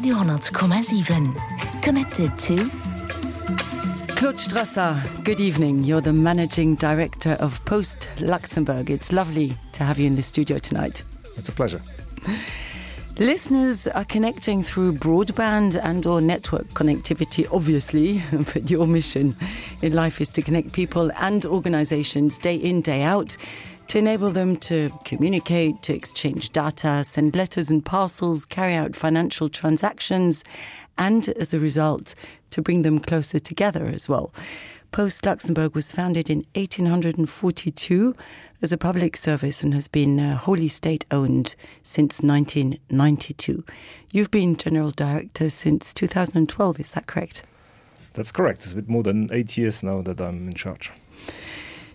Radio 10,7. Connected to Claude Strasser, good evening. You're the Managing Director of Post Luxembourg. It's lovely to have you in the studio tonight. It's a pleasure. Listeners are connecting through broadband and or network connectivity, obviously, but your mission in life is to connect people and organizations day in, day out, to enable them to communicate, to exchange data, send letters and parcels, carry out financial transactions, and as a result, to bring them closer together as well. Post Luxembourg was founded in 1842 as a public service and has been wholly state-owned since 1992. You've been General Director since 2012, is that correct? That's correct. It's a bit more than 8 years now that I'm in charge.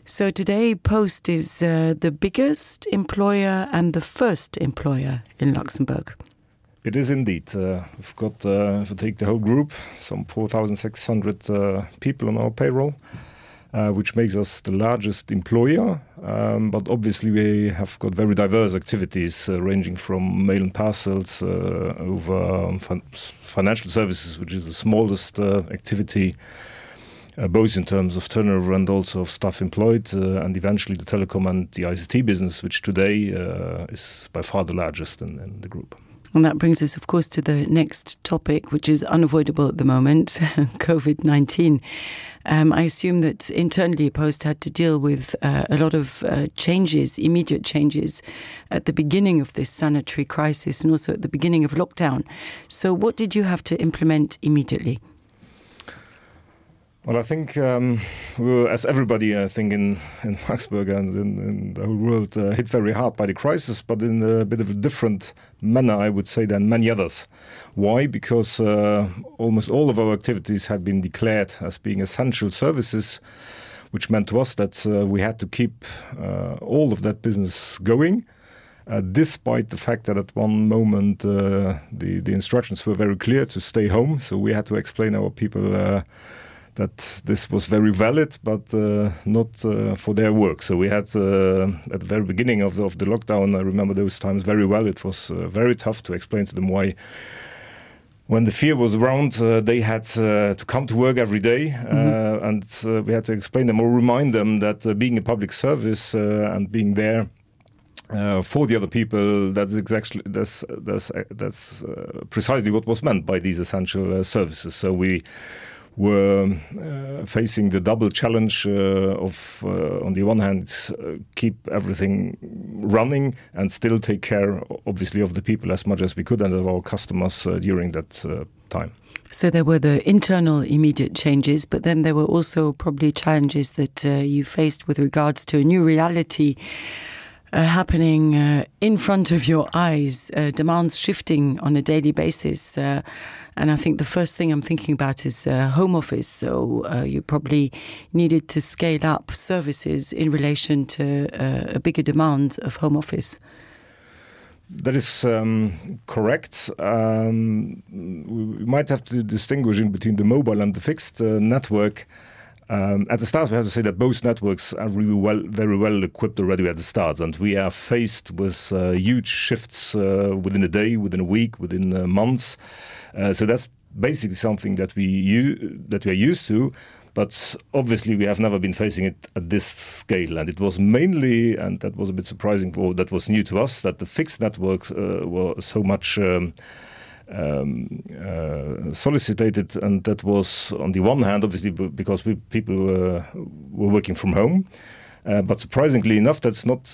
So today, Post is the biggest employer and the first employer in Luxembourg. It is indeed. We've got, if I take the whole group, some 4,600 people on our payroll, which makes us the largest employer. But obviously we have got very diverse activities ranging from mail and parcels over financial services, which is the smallest activity, both in terms of turnover and also of staff employed, and eventually the telecom and the ICT business, which today is by far the largest in the group. And that brings us, of course, to the next topic, which is unavoidable at the moment, COVID-19. I assume that internally Post had to deal with a lot of changes, immediate changes, at the beginning of this sanitary crisis and also at the beginning of lockdown. So what did you have to implement immediately? Well, I think we were, as everybody, I think, in Luxembourg and in the whole world, hit very hard by the crisis, but in a bit of a different manner, I would say, than many others. Why? Because almost all of our activities had been declared as being essential services, which meant to us that we had to keep all of that business going, despite the fact that at one moment the instructions were very clear to stay home. So we had to explain our people that this was very valid, but not for their work. So we had, at the very beginning of the lockdown, I remember those times very well, it was very tough to explain to them why, when the fear was around, they had to come to work every day, and we had to explain them or remind them that being a public service and being there for the other people, that's precisely what was meant by these essential services. So we were facing the double challenge of, on the one hand, keep everything running and still take care, obviously, of the people as much as we could and of our customers during that time. So there were the internal immediate changes, but then there were also probably challenges that you faced with regards to a new reality happening in front of your eyes, demands shifting on a daily basis. And I think the first thing I'm thinking about is home office. So you probably needed to scale up services in relation to a bigger demand of home office. That is correct. We might have to distinguish in between the mobile and the fixed network. At the start, we have to say that both networks are really very well equipped already at the start, and we are faced with huge shifts within a day, within a week, within months. So that's basically something that we are used to, but obviously we have never been facing it at this scale. And it was mainly, and that was a bit surprising, or that was new to us, that the fixed networks were so much solicited, and that was on the one hand obviously because people were working from home, but surprisingly enough that's not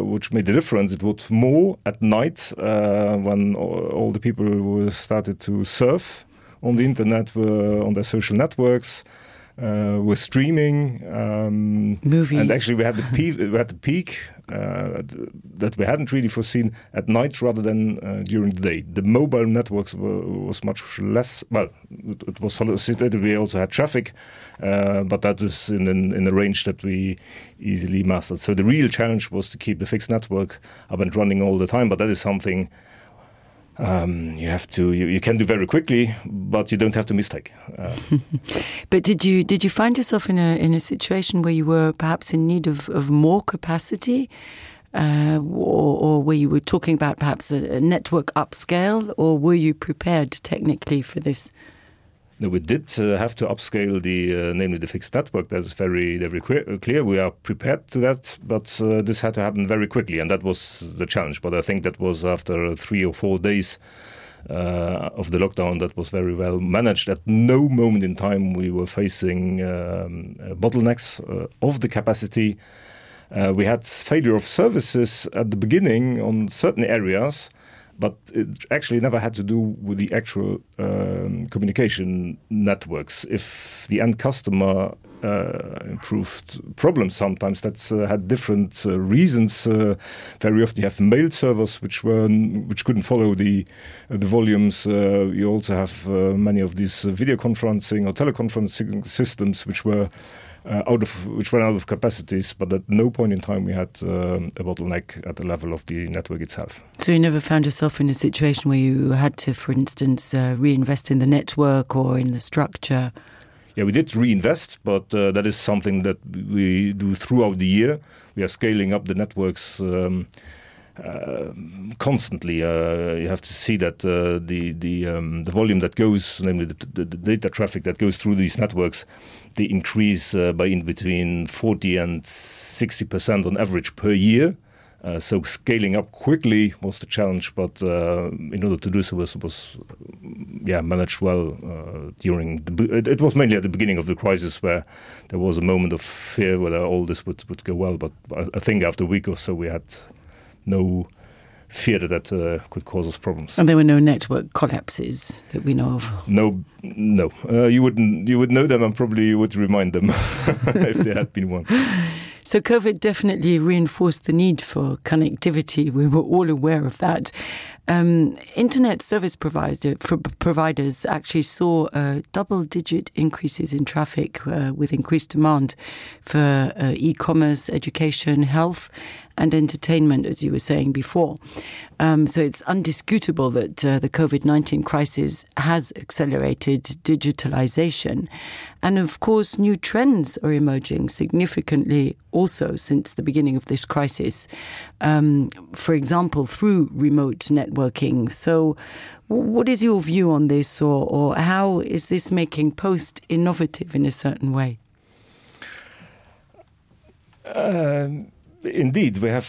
which made the difference. It was more at night when all the people started to surf on the internet, were on their social networks, were streaming, movies, and actually we had the peak that we hadn't really foreseen at night rather than during the day. The mobile networks was much less. Well, it was solicited. We also had traffic, but that is in a range that we easily mastered. So the real challenge was to keep the fixed network up and running all the time. But that is something you can do very quickly, but you don't have to mistake. But did you find yourself in a situation where you were perhaps in need of more capacity or were you talking about perhaps a network upscale, or were you prepared technically for this? No, we did have to upscale namely the fixed network. That's very clear. We are prepared to that, but this had to happen very quickly, and that was the challenge. But I think that was after 3 or 4 days of the lockdown that was very well managed. At no moment in time we were facing bottlenecks of the capacity. We had failure of services at the beginning on certain areas, but it actually never had to do with the actual communication networks. If the end customer improved problems, sometimes that's had different reasons. Very often you have mail servers which couldn't follow the volumes. You also have many of these video conferencing or teleconferencing systems which ran out of capacities, but at no point in time we had a bottleneck at the level of the network itself. So you never found yourself in a situation where you had to, for instance, reinvest in the network or in the structure? Yeah, we did reinvest, but that is something that we do throughout the year. We are scaling up the networks constantly. You have to see that the volume that goes, namely the data traffic that goes through these networks, they increase by in between 40 and 60% on average per year. So scaling up quickly was the challenge, but in order to do so was managed well during it was mainly at the beginning of the crisis where there was a moment of fear whether all this would go well. But I think after a week or so we had no fear that could cause us problems. And there were no network collapses that we know of? No. You would know them, and probably you would remind them if there had been one. So COVID definitely reinforced the need for connectivity. We were all aware of that. Internet service providers actually saw double-digit increases in traffic with increased demand for e-commerce, education, health and entertainment, as you were saying before. So it's undisputable that the COVID-19 crisis has accelerated digitalization. And of course, new trends are emerging significantly also since the beginning of this crisis. For example, through remote networking. So what is your view on this, or how is this making Post innovative in a certain way? Indeed, we are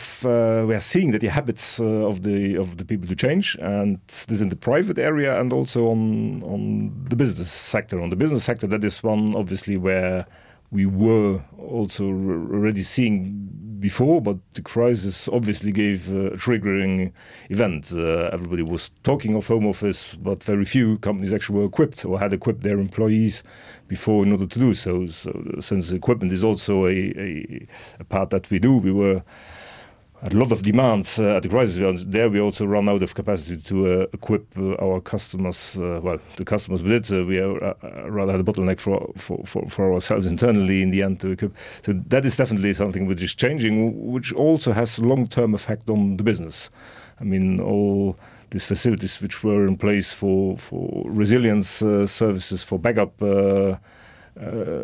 seeing that the habits of the people to change, and this in the private area and also on the business sector. On the business sector, that is one obviously where we were also already seeing before, but the crisis obviously gave a triggering event. Everybody was talking of home office, but very few companies actually were equipped or had equipped their employees before in order to do so. So since equipment is also a part that we do, we were a lot of demands at the crisis. There we also run out of capacity to equip our customers, the customers with it. We rather had a bottleneck for ourselves internally in the end to equip. So that is definitely something which is changing, which also has long-term effect on the business. I mean, all these facilities which were in place for resilience services, for backup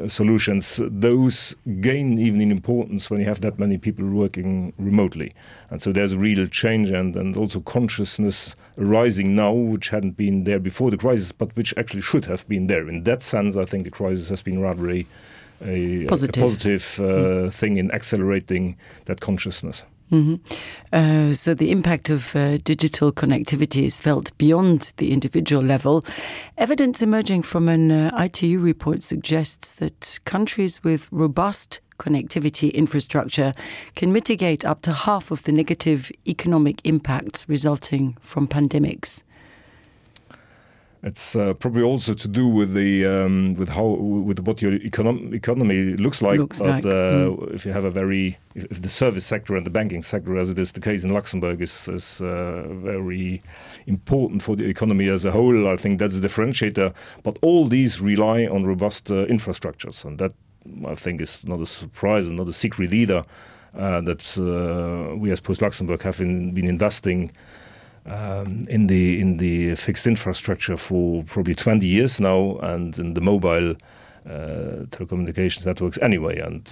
solutions, those gain even in importance when you have that many people working remotely. And so there's a real change and also consciousness arising now, which hadn't been there before the crisis, but which actually should have been there. In that sense, I think the crisis has been rather a positive thing in accelerating that consciousness. Mm-hmm. So the impact of digital connectivity is felt beyond the individual level. Evidence emerging from an ITU report suggests that countries with robust connectivity infrastructure can mitigate up to half of the negative economic impacts resulting from pandemics. It's probably also to do with what your economy looks like. If you have if the service sector and the banking sector, as it is the case in Luxembourg, is very important for the economy as a whole, I think that's a differentiator. But all these rely on robust infrastructures, and that I think is not a surprise and not a secret either. That we as Post Luxembourg have been investing in the fixed infrastructure for probably 20 years now, and in the mobile telecommunications networks anyway. And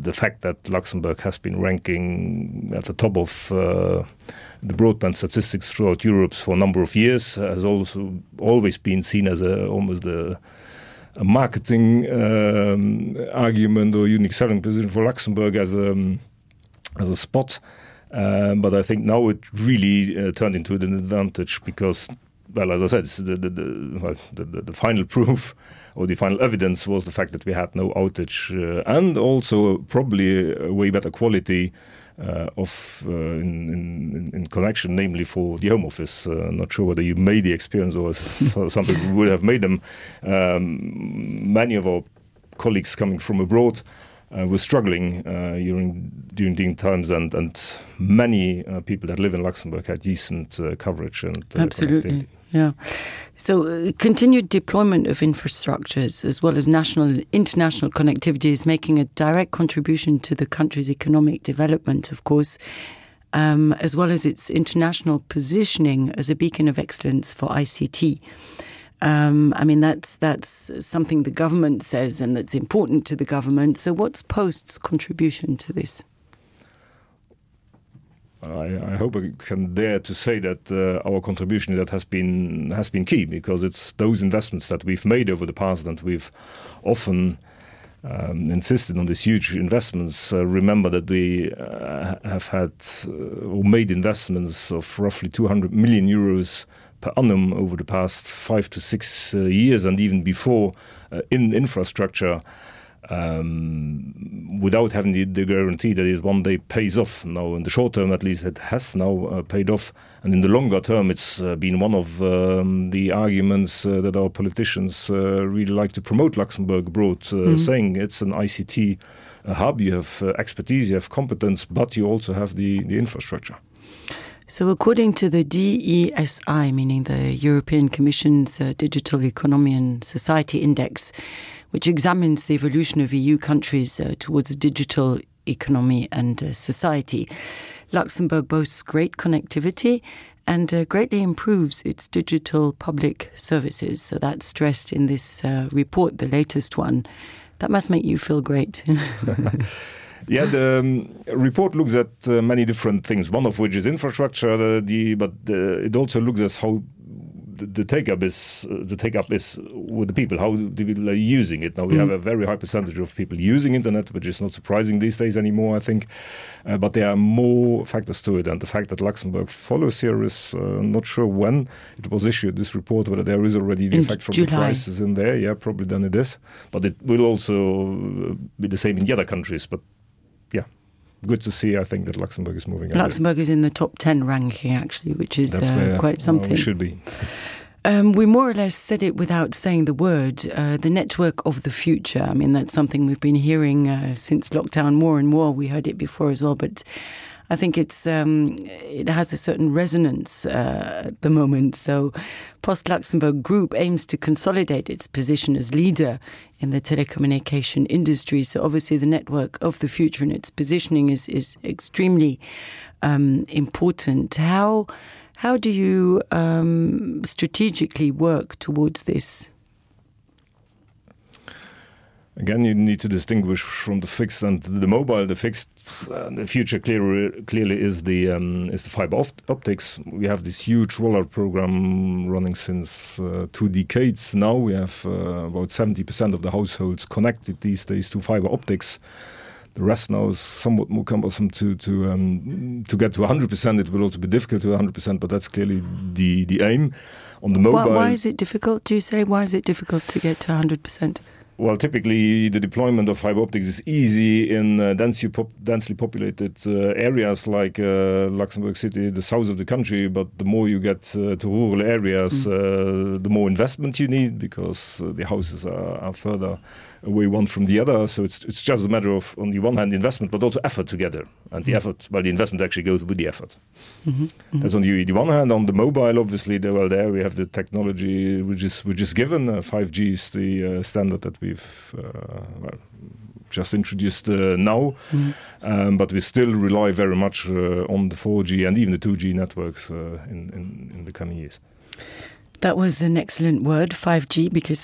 the fact that Luxembourg has been ranking at the top of the broadband statistics throughout Europe for a number of years has also always been seen as almost a marketing argument or unique selling position for Luxembourg as a spot. But I think now it really turned into an advantage because, well, as I said, the final proof or the final evidence was the fact that we had no outage and also probably a way better quality in connection, namely for the Home Office. Not sure whether you made the experience or some people would have made them. Many of our colleagues coming from abroad were struggling during the times, and many people that live in Luxembourg had decent coverage and absolutely, yeah. So continued deployment of infrastructures as well as national and international connectivity is making a direct contribution to the country's economic development, of course, as well as its international positioning as a beacon of excellence for ICT. I mean, that's something the government says and that's important to the government. So what's Post's contribution to this? I hope I can dare to say that our contribution to that has been key, because it's those investments that we've made over the past, and we've often insisted on these huge investments. Remember that we have had or made investments of roughly 200 million euros per annum over the past 5 to 6 years, and even before in infrastructure, without having the guarantee that it one day pays off. Now, in the short term, at least, it has now paid off. And in the longer term, it's been one of the arguments that our politicians really like to promote Luxembourg abroad, saying it's an ICT hub. You have expertise, you have competence, but you also have the infrastructure. So according to the DESI, meaning the European Commission's Digital Economy and Society Index, which examines the evolution of EU countries towards a digital economy and society, Luxembourg boasts great connectivity and greatly improves its digital public services. So that's stressed in this report, the latest one. That must make you feel great. Yeah, the report looks at many different things, one of which is infrastructure, but it also looks at how the take-up is with the people, how the people are using it. Now, we have a very high percentage of people using internet, which is not surprising these days anymore, I think. But there are more factors to it. And the fact that Luxembourg follows here is not sure when it was issued, this report, whether there is already the effect from July. The crisis in there. Yeah, probably then it is. But it will also be the same in the other countries. But yeah, good to see, I think, that Luxembourg is moving on. Luxembourg is in the top 10 ranking, actually, which is quite something. It should be. We more or less said it without saying the word, the network of the future. I mean, that's something we've been hearing since lockdown more and more. We heard it before as well, but I think it has a certain resonance at the moment. So Post Luxembourg Group aims to consolidate its position as leader in the telecommunication industry. So obviously the network of the future and its positioning is extremely important. How do you strategically work towards this? Again, you need to distinguish from the fixed and the mobile. The fixed, the future clearly is the fiber optics. We have this huge rollout program running since 2 decades now. We have about 70% of the households connected these days to fiber optics. The rest now is somewhat more cumbersome to get to 100%. It will also be difficult to 100%, but that's clearly the aim. On the mobile, why is it difficult? Do you say why is it difficult to get to 100%? Well, typically the deployment of fiber optics is easy in densely populated areas like Luxembourg City, the south of the country. But the more you get to rural areas, the more investment you need, because the houses are further away one from the other. So it's just a matter of, on the one hand, investment, but also effort together. And the effort, well, the investment actually goes with the effort. That's on the one hand. On the mobile, obviously, there we have the technology which is given. 5G is the standard that we've just introduced now, but we still rely very much on the 4G and even the 2G networks in the coming years. That was an excellent word, 5G, because